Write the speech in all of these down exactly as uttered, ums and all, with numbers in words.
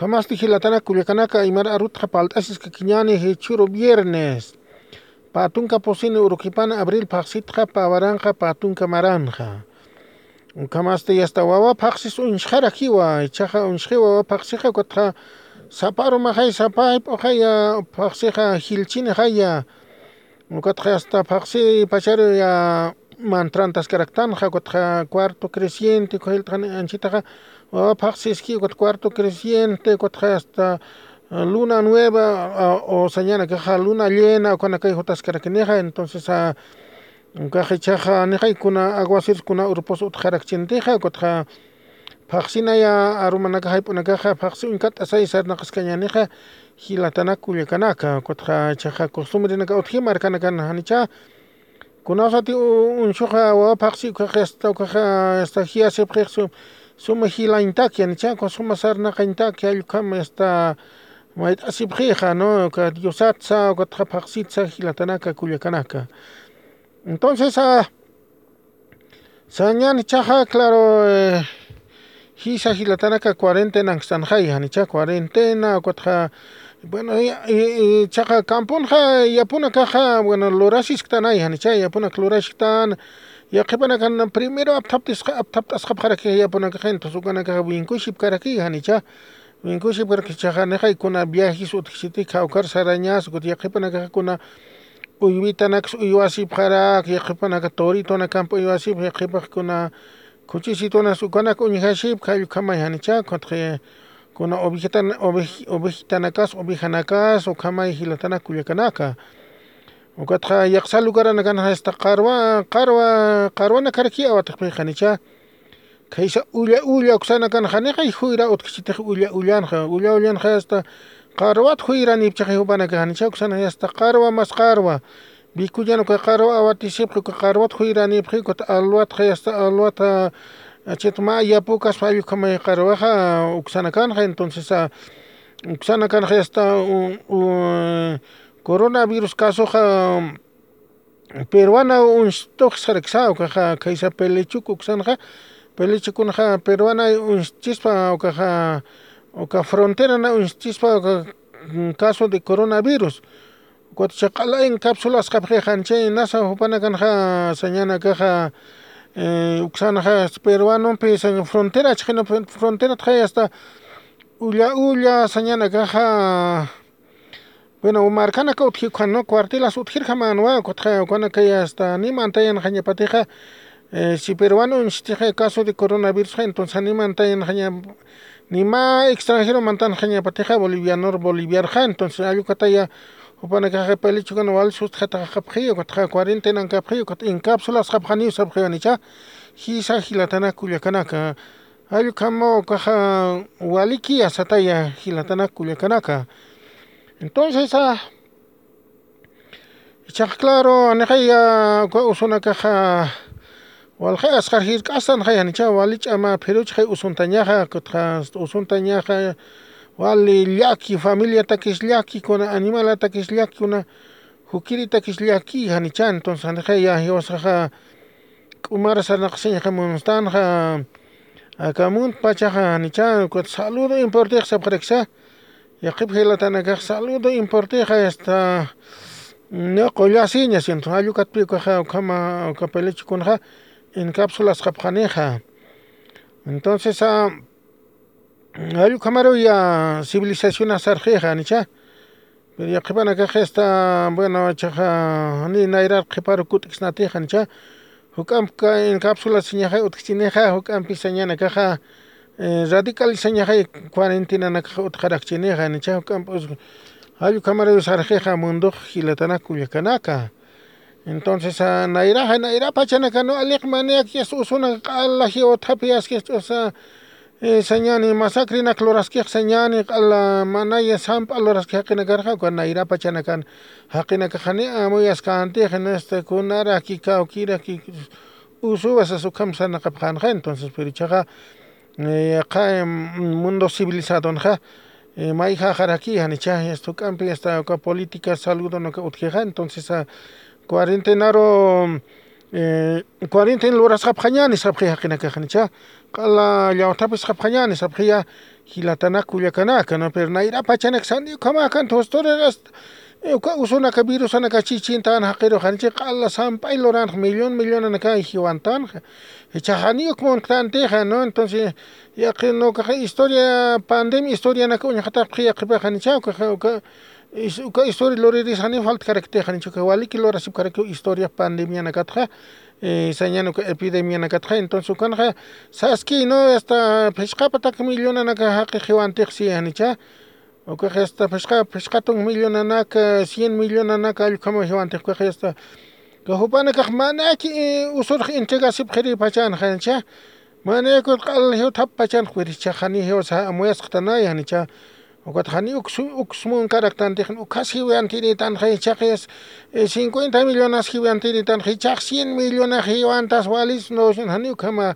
Ukhamasti jilatanaka kullakanaka, aymar arutxa palt'asiskakiñäni jichhüru viernes. Pä tunka pusini urukipan abril phaxsitxa pä waranxa pä tunka maranxa. Ukhamasti yasta wawa phaxsis uñsxarakiwa, ichaxa uñsxiwa wawa phaxsixa, ukatxa sapa arumaxay, sapa jayp'uxaya phaxsixa jilchinixaya. Ukatxa yasta phaxsi pacharu ya mantrantaskaraktanxa, ukatxa cuarto creciente, ukhayiltxani anchitaxa wawa phaxsiski, ukat cuarto creciente, ukatxa yasta luna nueva, o sañanakaxa luna llena, ukanakay jutaskarakinixa. Entonces, ukax ichaxa nixay kuna aguaceros kuna urupus utjarakchintixa, ukatxa phaxsinaya arumanakax jayp'unakaxa phaxsi uñkat'asay sarnaqaskañänixa, jilatanak kullakanaka, ukatxa ichaxa costumbrenakat utji markanakan janicha. Kunasati uñsuxa wawa phaxsi ukaxa, yasta ukaxa yasta jiyasipxix suma jilañtaki janicha, ukax suma sarnaqañtaki, jall ukham yasta mayt'asipxixa, ¿no? Uka diosatsa, ukatxa phaxsitsa, jilatanaka kullakanaka. Entonces, sañäni ichaxa, claro, jisa jilatanaka cuarentenankstanxay janicha, cuarentena, ukatxa, bueno, ichaxa campunxa yapunakaxa, bueno, lurasisktanay janicha, yapunak lurasktan, yaqhipanakan primero apthapt'asxapxaraki yapunakaxa, entonces ukanakaxa winkushipkaraki janicha. Winkushipkaraki ichaxa nixay kuna viajes utjkchiti, kawkar sarañas, ukat yaqhipanakaxa kuna uywitanaks uywasipxarak, yaqhipanaka toritonakamp uywasipx, yaqhipax kuna khuchisitunas ukanak uñjasipx, jall ukhamay janicha, ukatxa kuna ovejitanakas, ovejanakas, ukhamay jilatanak kullakanaka. Ukatxa yaqsa lugaranakanxa yasta qarwa, qarwa, qarwanakarakiy awatxpix janicha. Khaysa ulla ulla uksanakanxa nixay juyra utjkchitix ulla ullanxa, ulla ullanxa yasta qarwat juyranipchixi jupanakax janicha, uksanxa yasta qarwa mas qarwa. Vikullan uka qarwa awatisipxi, uka qarwat juyranipxi, ukat alwatxa yasta alwata, chit mä yapukaspa jall ukhamay qarwaxa uksanakanxa, entonces, uksanakanxa yasta coronavirus casoxa peruana uñstux saraksa, ukaxa khaysa Pelechuc uksanxa, Pelechucunxa peruana uñschispa, ukaxa uka fronterana uñschispa, uka caso de coronavirus. Ukat chaq'ala encapsulasxapxi janicha, nasa jupanakanxa sañanakaxa uksanxa peruanompi sañ frontera chixina, fronteratxa yasta ulla ulla sañanakaxa. Bueno, markanaka utji ukhan, ¿no? Cuartelas utjirjamänwa, ukatxa ukanakay hasta ni mantayanxañapatixa, si peruano uñstixa caso de coronavirusxa, entonces ni mantayanxaña, ni mä extranjero mantanxañapatixa bolivianor boliviarxa, entonces jall ukataya jupanakaxa Pelechucan wal sustjataxapxi, ukatxa cuarentenankapxi, ukat encapsulasxapxaniw sapxiw janicha, jisa jilatanak kullakanaka. Jall ukhamaw ukaxa walikiya sataya jilatanak kullakanaka. Entonces, ichax claro, nixay uka usunakaxa walxay asqar jirk'astanxay janicha, wali ch'ama phiruchxay usuntañaxa, ukatxa usuntañaxa, wali llaki, familiatakis llaki, kuna animalatakis llaki, kuna jukiritakis llaki janicha, entonces nixay jiwasaxa k'umar sarnaqasiñxa munstanxa, aka munt pachaxa janicha, ukat saludo importantix sapxaraksa, yaqhip jilatanakax saludo importantix hasta no qullasiña, siento jall ukatpi ukaxa ukhama uka Pelechucunxa encapsulasxapxanixa. Entonces, jall ukhamaruw ya civilizacionax sarxixa janicha. Pero yaqhipanakax esta, bueno, ichaxa ni nayrar qhiparu kut'ksnatixa janicha. Juk'amp encapsulasiñaxay utjchinixa, juk'ampi sañanakaxa radicalizañaxay cuarentenanakax utjarakchinixa janicha, juk'amp jall ukhamaruw sarxixa mundux jilatanak kullakanaka. Entonces, nayraxa, nayra pachanakanu aliq maniyaki yasta usunak q'ala jiwatxapi aski yasta usa, sañani masacrenak luraskix sañani q'ala manaya samp'a luraski jaqinakarxa, uka nayra pachanakan jaqinakax janiw amuyaskänti, jina este kunaraki kawkiraki usuwa sas ukham sarnaqapxänxa, entonces, pero ichaxa, yaqha mundo civilizadonxa mayjäxaraki janicha, yasta juk'ampi yasta uka política saludonaka utjixa, entonces, cuarentenaru eh, cuarentena lurasxapxañäni sapxi jaqinakax, janicha. Q'ala llawthapis sapxañäni sapxiya, jilatanak kullakanaka, ¿no? Pero nayra pachanak sani ukhamakan thusturiras, eh, uka usunaka virusanaka chichintan jaqiru, janicha q'ala samp'ay luranx millón millonanaka jiwantanxa. Jichhax jani uk munktantixa, ¿no? Entonces, yaqi, ¿no? Ukaxa historia, pandemia historianaka uñxatapxi yaqhipax, janicha, ukaxa, uka, is-, uka historia luriris jani faltkarakti, janicha, uka waliki lurasipkarakiw historia pandemianakatxa, eh, sañan uka epidemianakatxa, entonces ukanxa, saski, ¿no? Hasta phisqapatak millonanaka jaqi jiwantix si, janicha, ukax hasta phisqa, phisqatun millonanaka, cien millonanaka allkhama jiwantix, ukax hasta, uka jupanakax manaki, eh, usurx entregasipxiri pachan, janicha, manaki q'al jiwthap pachan, wirichhax jani jiwasa amuyasqtanay, janicha, ukat jani uks, uks munkaraktantixa, ukhas jiwantinitanxa, jichhax, eh, cincuenta millonas jiwantinitanxa, jichhax cien millonas jiwantas walis, no, jani ukhama,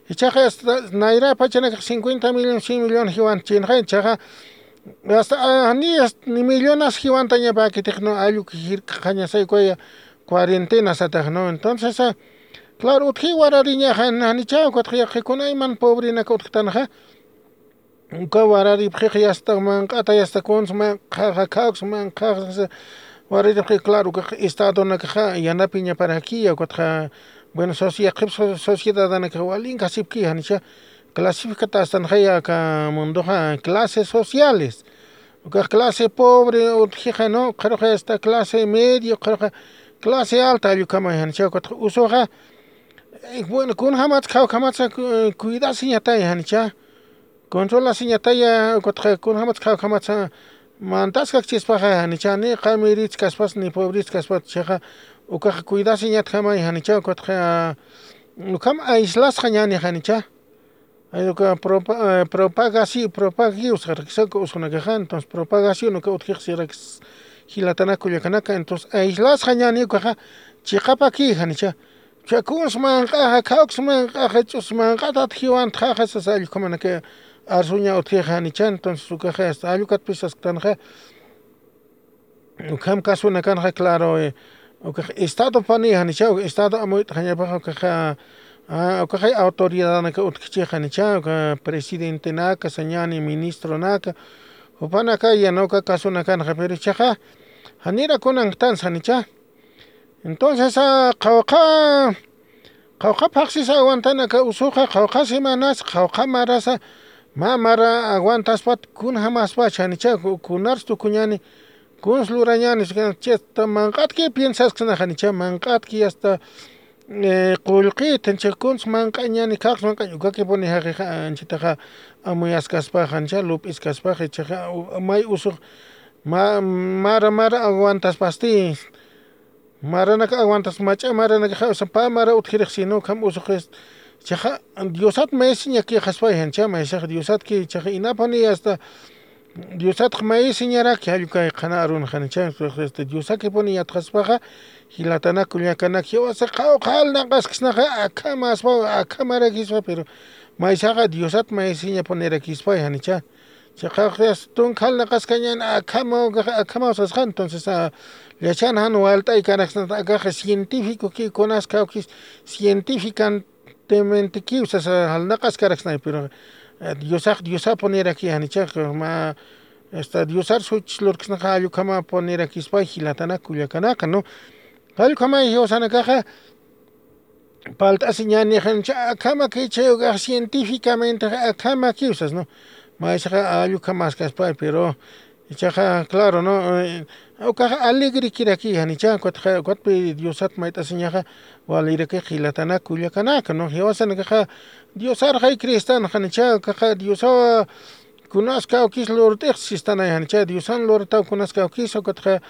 jichhax hasta nayra pachanakax cincuenta millones, cien millones jiwantchinxa, jichhaxa, hasta, ah, jani, hasta ni millonas jiwantañapäkitix, ¿no? Alluk jirk'añasay ukaya cuarentena satax, ¿no? Entonces, ah, claro, utji warariñaxa, janicha, ukat yaqi kunayman pobrenaka utjtanxa, uka wararipxix yasta manq'ata, yasta kuns manq'axa, khawks manq'axa, wararipxix, claro, ukax estadonakaxa yanapiñaparaki, ukatxa, bueno, soci-, yaqhip so-, sociedadanakax walinkasipki, janicha, clasificatästanxaya aka mundoxa clases sociales. Ukax clase pobre utjixa, ¿no? Ukxaruxa hasta clase medio, ukxaruxa clase alta, allkhama, janicha, ukatxa usuxa, eh, bueno, kunjamatsa, khawjamatsa, cu-, cuidasiñatay, janicha. Controlasiñataya, ukatxa kunjamatsa, khawjamatsa mantaskakchispaxa, janicha, ni qamiritskaspas, ni pobritskaspas, jichhaxa, ukax cuidasiñatjamay, janicha, ukatxa, ukham aislasxañäni, janicha. Ay, uka propa-, eh, propagasi-, propagiw sarakisa uka usunakaxa, entonces propagación uka utjix sirakis jilatanak kullakanaka, entonces aislasxañäni ukaxa chiqapaki, janicha. Uka kuns manq'axa, khawks manq'axa, ch'us manq'atat jiwantxaxa sasa allkhumanaka arsuña utjixa, janicha, entonces ukaxa hasta allukatpis sasktanxa. Ukham kasunakanxa, claro, eh, ukax estadopani, janicha, estado amuyt'añapaxa, ukaxa, ah, ukaxa autoridadanaka utjkichix, janicha, uka presidentenaka, sañäni ministronaka, jupanaka, ya, ¿no? Uka kasunakanxa, pero jichhaxa, janira kunanktansa, janicha. Entonces, ah, qhawqha, qhawqha phaxsisa aguantanaka usuxa, qhawqha semanas, qhawqha marasa, mä mara aguantaspat, kunjamaspa, janicha, ku-, kunars tukuñäni, kuns lurañäni, chista manq'atki piensaskna, janicha, manq'atki hasta, eh, qullqit, janicha, kuns manq'añäni, khawks manq'añ, ukakipuni jaqixa, anchitaxa, amuyaskaspa, janicha, lup'iskaspa, jichhaxa, u-, may usux, ma-, mara, mara aguantaspasti, maranak aguantas, mach'a maranakaxa, o sea, pä mara utjirix, sino ukham usuxis. Jichhaxa, Diosat maysiñakïxaspay, janicha, maysax Diosatki, jichhaxa, inapuni hasta Diosatx maysiñaraki, jallukay qhana arunxa, janicha, este, Diosakipuni yatxaspaxa, jilatanak kullakanak, jiwasa qhawqha jalnaqasksnaxa, akhamaspa, akhamarakispa, pero maysaxa Diosat maysiñapunirakispa, janicha. Chiqax tunka jalnaqaskañäni, akhama, akhama sasxa, entonces, ah, yachan jan walt'aykaraksnata, akax científicoki, kunas kawkis, científicamente kiw sasa jalnaqaskaraksnay, pero, eh, Diosax, Diosapuniraki, janichax, mä, esta, Diosar such lurksnaxa, jallukhamapunirakispa, jilatanak kullakanaka, ¿no? Jallukhamay jiwasanakaxa, palt'asiñäni, janicha, akhamaki, chay ukax científicamente akhamakiw sas, ¿no? Maysaxa allukhamäskaspay, pero jichhaxa, claro, ¿no? Eh, ukaxa alegrekiraki, janicha, ukatxa, ukatpi Diosat mayt'asiñaxa, waliraki jilatanak kullakanaka, ¿no? Jiwasanakaxa, Diosarxay cristan, janicha, ukaxa, Diosawa, kunas kawkis lurt'ix sistanay, janicha, Diosan lurtaw kunas kawkis, ukatxa,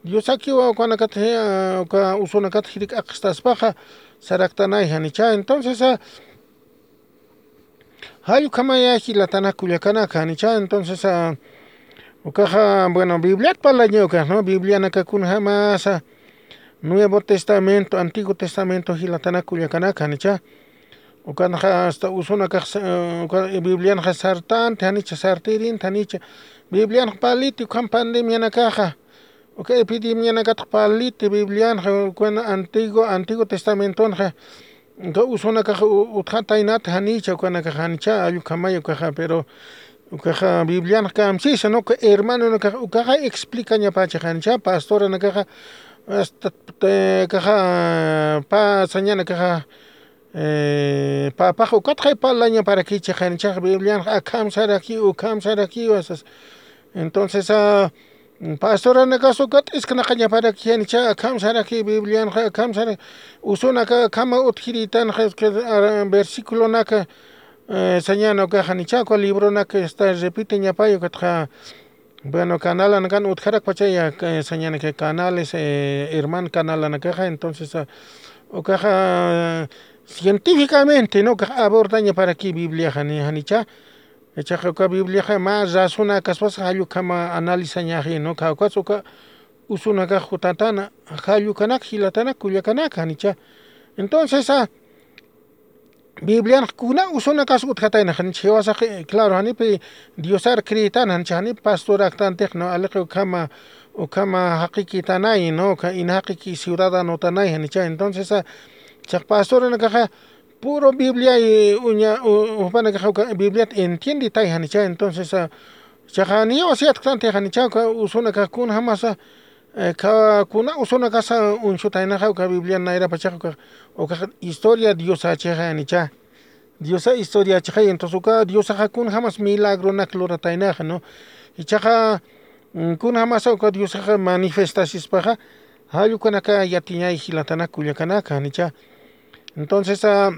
Diosakiwa ukanakat, eh, uka usunakat jirk'aqstaspaxa, saraktanay, janicha. Entonces, ah, jallukhamaya jilatanak kullakanaka, janicha. Entonces, ah, ukaxa, bueno, Bibliat parlaña ukax, ¿no? Biblianaka kunjamasa, Nuevo Testamento, Antiguo Testamento jilatanak kullakanaka, janicha. Ukanxa hasta usunakax, eh, uka Biblianxa sartanti, janicha, sartirinti, janicha. Biblianxa parliti, ukham pandemianakaxa. Uka epidemianakatx parliti Biblianxa, ukan antiguo, antiguo testamentonxa, uka usunakax u-, utjataynat janicha, ukanakax janicha, allukhamay ukaxa, pero ukaxa Biblianxa kamsisa, ¿no? Uka hermanonakax ukaxa explicañapacha janicha, pastoranakaxa, hasta, eh, kaxa, pa, sañanakaxa, eh, papax ukatxay parlañaparakicha janichax Biblianxa akham saraki, ukham saraki, asas. Entonces, ah, pastoranakas ukat isknaqañaparaki janicha, akham saraki Biblianxa, akham saraki, usunaka akhama utjiritanxa, es que, ah, versiculonaka, eh, sañana ukax janicha, uka libronaka está repiteñapay, ukatxa, bueno, canalanakan utjarakpachaya, eh, sañanaka canales, eh, herman canalanakaxa, entonces, ah, ukaxa, científicamente, ¿no? Ukax abordañaparaki Bibliaxa, ni janicha, ichaxa uka Bibliaxa mä razonakaspas jallukama analizañaxi, ¿no? Uka, ukas uka usunakax jutatana, jallukanak, jilatanak, kullakanaka, janicha. Entonces, ah, Biblianx kuna usunakas utjatayna, janicha, jiwasax, eh, claro, janipi Diosar creetana, janicha, janipi pastoraktantix, ¿no? Aliqi ukhama, ukhama jaqikitanay, ¿no? Ukha ina jaqiki ciudadanotanay, janicha. Entonces, ah, chax pastoranakaxa puro Biblia, eh, uña, u-, jupanakaxa uka Bibliat entienditay, janicha. Entonces, ah, chaxa niyaw asiyatktantix, janicha, uka usunakax kunjamasa, eh, ka-, kuna usunakasa uñsutaynaxa uka Biblia nayrapachax uka, uka historia Diosachixa, janicha. Diosa historiachixa, entonces uka Diosaxa kunjamas milagronak lurataynaxa, ¿no? Ichaxa, mm, kunjamasa uka Diosaxa manifestasispaxa, jallukanaka yatiñay jilatanak kullakanaka, janicha. Entonces, ah,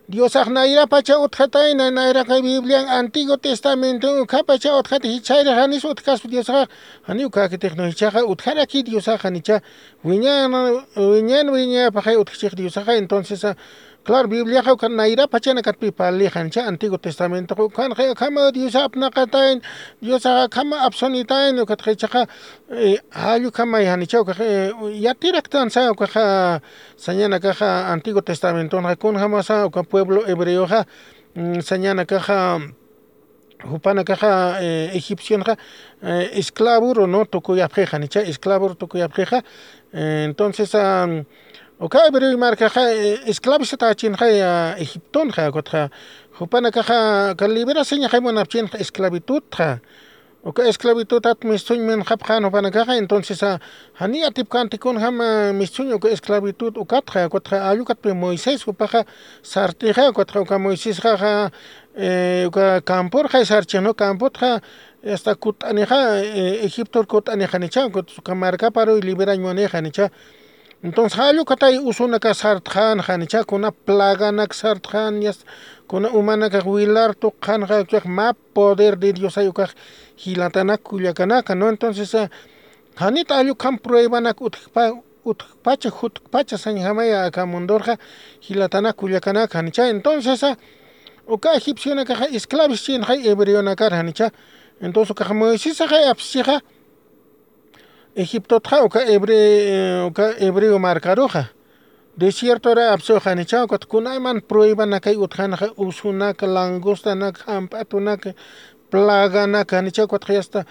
Diosax nayrapacha utjatayna, nayraqay Biblian Antiguo Testamento ukhapacha utjatay, jichhayra janis utjkaspa Diosaxa, jani ukakitix, ¿no? Jichhaxa utjaraki Diosaxa, janicha, wiñan, wiñan, wiñapaxay utjchix Diosaxa, entonces, ah, claro, Bibliaxa uka nayrapachanakatpi parli, janicha, Antiguo Testamento, ukanxa akhama Diosa apnaqatayn, Diosaxa akhama apsunitayn, ukatxa jichhaxa, eh, jallukhamay, janicha, ukax, eh, yatiraktansa, ukaxa, sañanakaxa Antiguo Testamentonxa kunjamasa uka pueblo hebreoxa, mm, sañanakaxa, jupanakaxa, eh, egipcionxa, eh, esclavuru, ¿no? Tukuyapxixa, janicha, esclavuru tukuyapxixa. Eh, entonces, ah, uka hebreo markaxa, eh, esclavizatächinxa, ah, Egiptonxa, ukatxa jupanakaxa, uka liberasañaxay munapchinxa esclavitudxa. Uka esclavitudat mistsuñ minxapxän jupanakaxa, entonces, ah, jani atipkänti kunjam, ah, mistsuñ uka esclavitud ukatxa, ukatxa allukatpi Moisés jupaxa sartixa, ukatxa uka Moisésxaxa, eh, uka campurxay sarchix, ¿no? Camputxa, hasta kutt'anixa, eh, Egiptor kutt'anixa, janicha, ukatxa uka markaparuy liberañ munïxa, janicha. Entonces, jallukatay usunaka sartxän, janicha, kuna plaganak sartxän, yasta, kuna umanakax wilar tuqxänxa, ukax mä poder de Diosay ukax jilatanak kullakanaka, ¿no? Entonces, ah, janit allukham pruebanak utjpa-, utjpacha, jutkpacha sañjamaya aka mundorxa jilatanak kullakanaka, janicha. Entonces, ah, uka egipcionakaxa esclavischinxay hebreonakar, janicha. Entonces, ukax Moisesaxay apschixa, Egiptotxa uka hebre-, uka hebreo markaruxa. Desiertora apsuxa, janicha, ukat kunayman pruebanakay utjänxa, usunak, langostanak, jamp'atunak, plaganak, janicha, ukatxa yasta,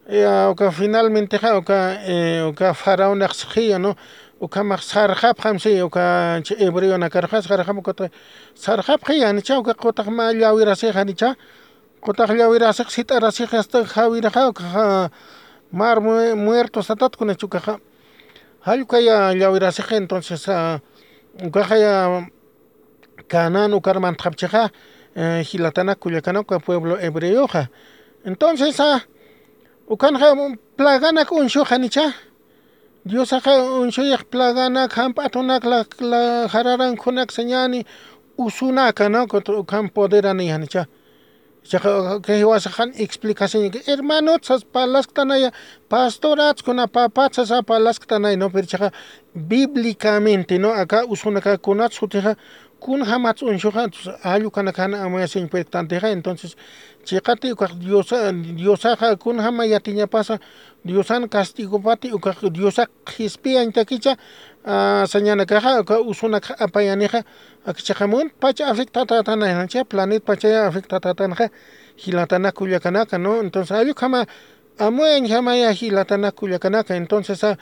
eh, uka finalmentexa, uka, eh, uka faraonax sixiya, ¿no? Ukhamax sarxapxam si, uka hebreonakarxa sarxapxam, ukatxa sarxapxiya, janicha, uka qutax mä llawirasix, janicha. Qutax llawirasix, sit'arasix, hasta jawiraxa, ukaxa mar mue-, muerto satat kunach ukaxa. Jallukaya llawirasix, entonces, ah, ukaxaya Canaán ukar mantxapchixa, eh, jilatanak kullakanak uka pueblo hebreoxa. Entonces, ah, ukanxa plaganak uñsux, janicha. Diosaxa uñsuyix plaganak, jamp'atunak, la, la, jararankunak sañäni, usunaka, ¿no? Ukham poderani, janicha. Chaxa, kay jiwasaxan explicación, hermanot sas parlasktanaya, pastorat kuna papat sas parlasktanay, ¿no? Pero chaxa bíblicamente, ¿no? Aka usunaka kunat sutixa, kunjamat uñsuxa, entonces, allukanakana amayasiñ puertantixa, entonces, chiqati ukax Diosa, Diosaxa kunjama yatiñapasa, Diosan castigopati, ukax Diosax qhispiyañtakicha, ah, sañanakaxa, uka usunak apayanixa, akchaxa muntpacha afectatatanay, janicha, planetpachaya afectatatanxa, jilatanak kullakanaka, ¿no? Entonces, allukhama Amuyañjamaya jilatanak kullakanaka. Entonces a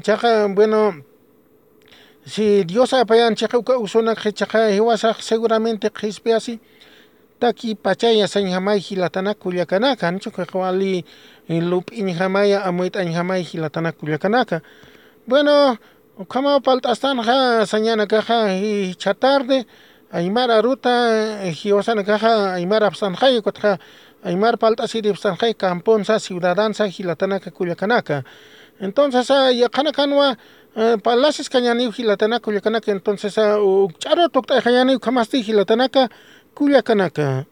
chaqa bueno, si dios apayan chiqa uka usunak chiqa jiwasax seguramente qhispiyasi taki pachaya sañjamay jilatanak kullakanaka anchukaqa wali lup'iñjamaya amuyt'añjamay jilatanak kullakanaka. Bueno, ukhamaw palt'astanxa sañanakaxa jichha tarde aymar aruta jiwasanakaxa aymar apsanxay ukatxa aymar palt'asiripsanxay camponsa ciudadansa jilatanaka kullakanaka. Entonces yaqhanakanwa parlasis kañaniw jilatanaka kullakanaka entonces ukch'aru tukt'ayxañaniw ukhamasti jilatanaka kullakanaka.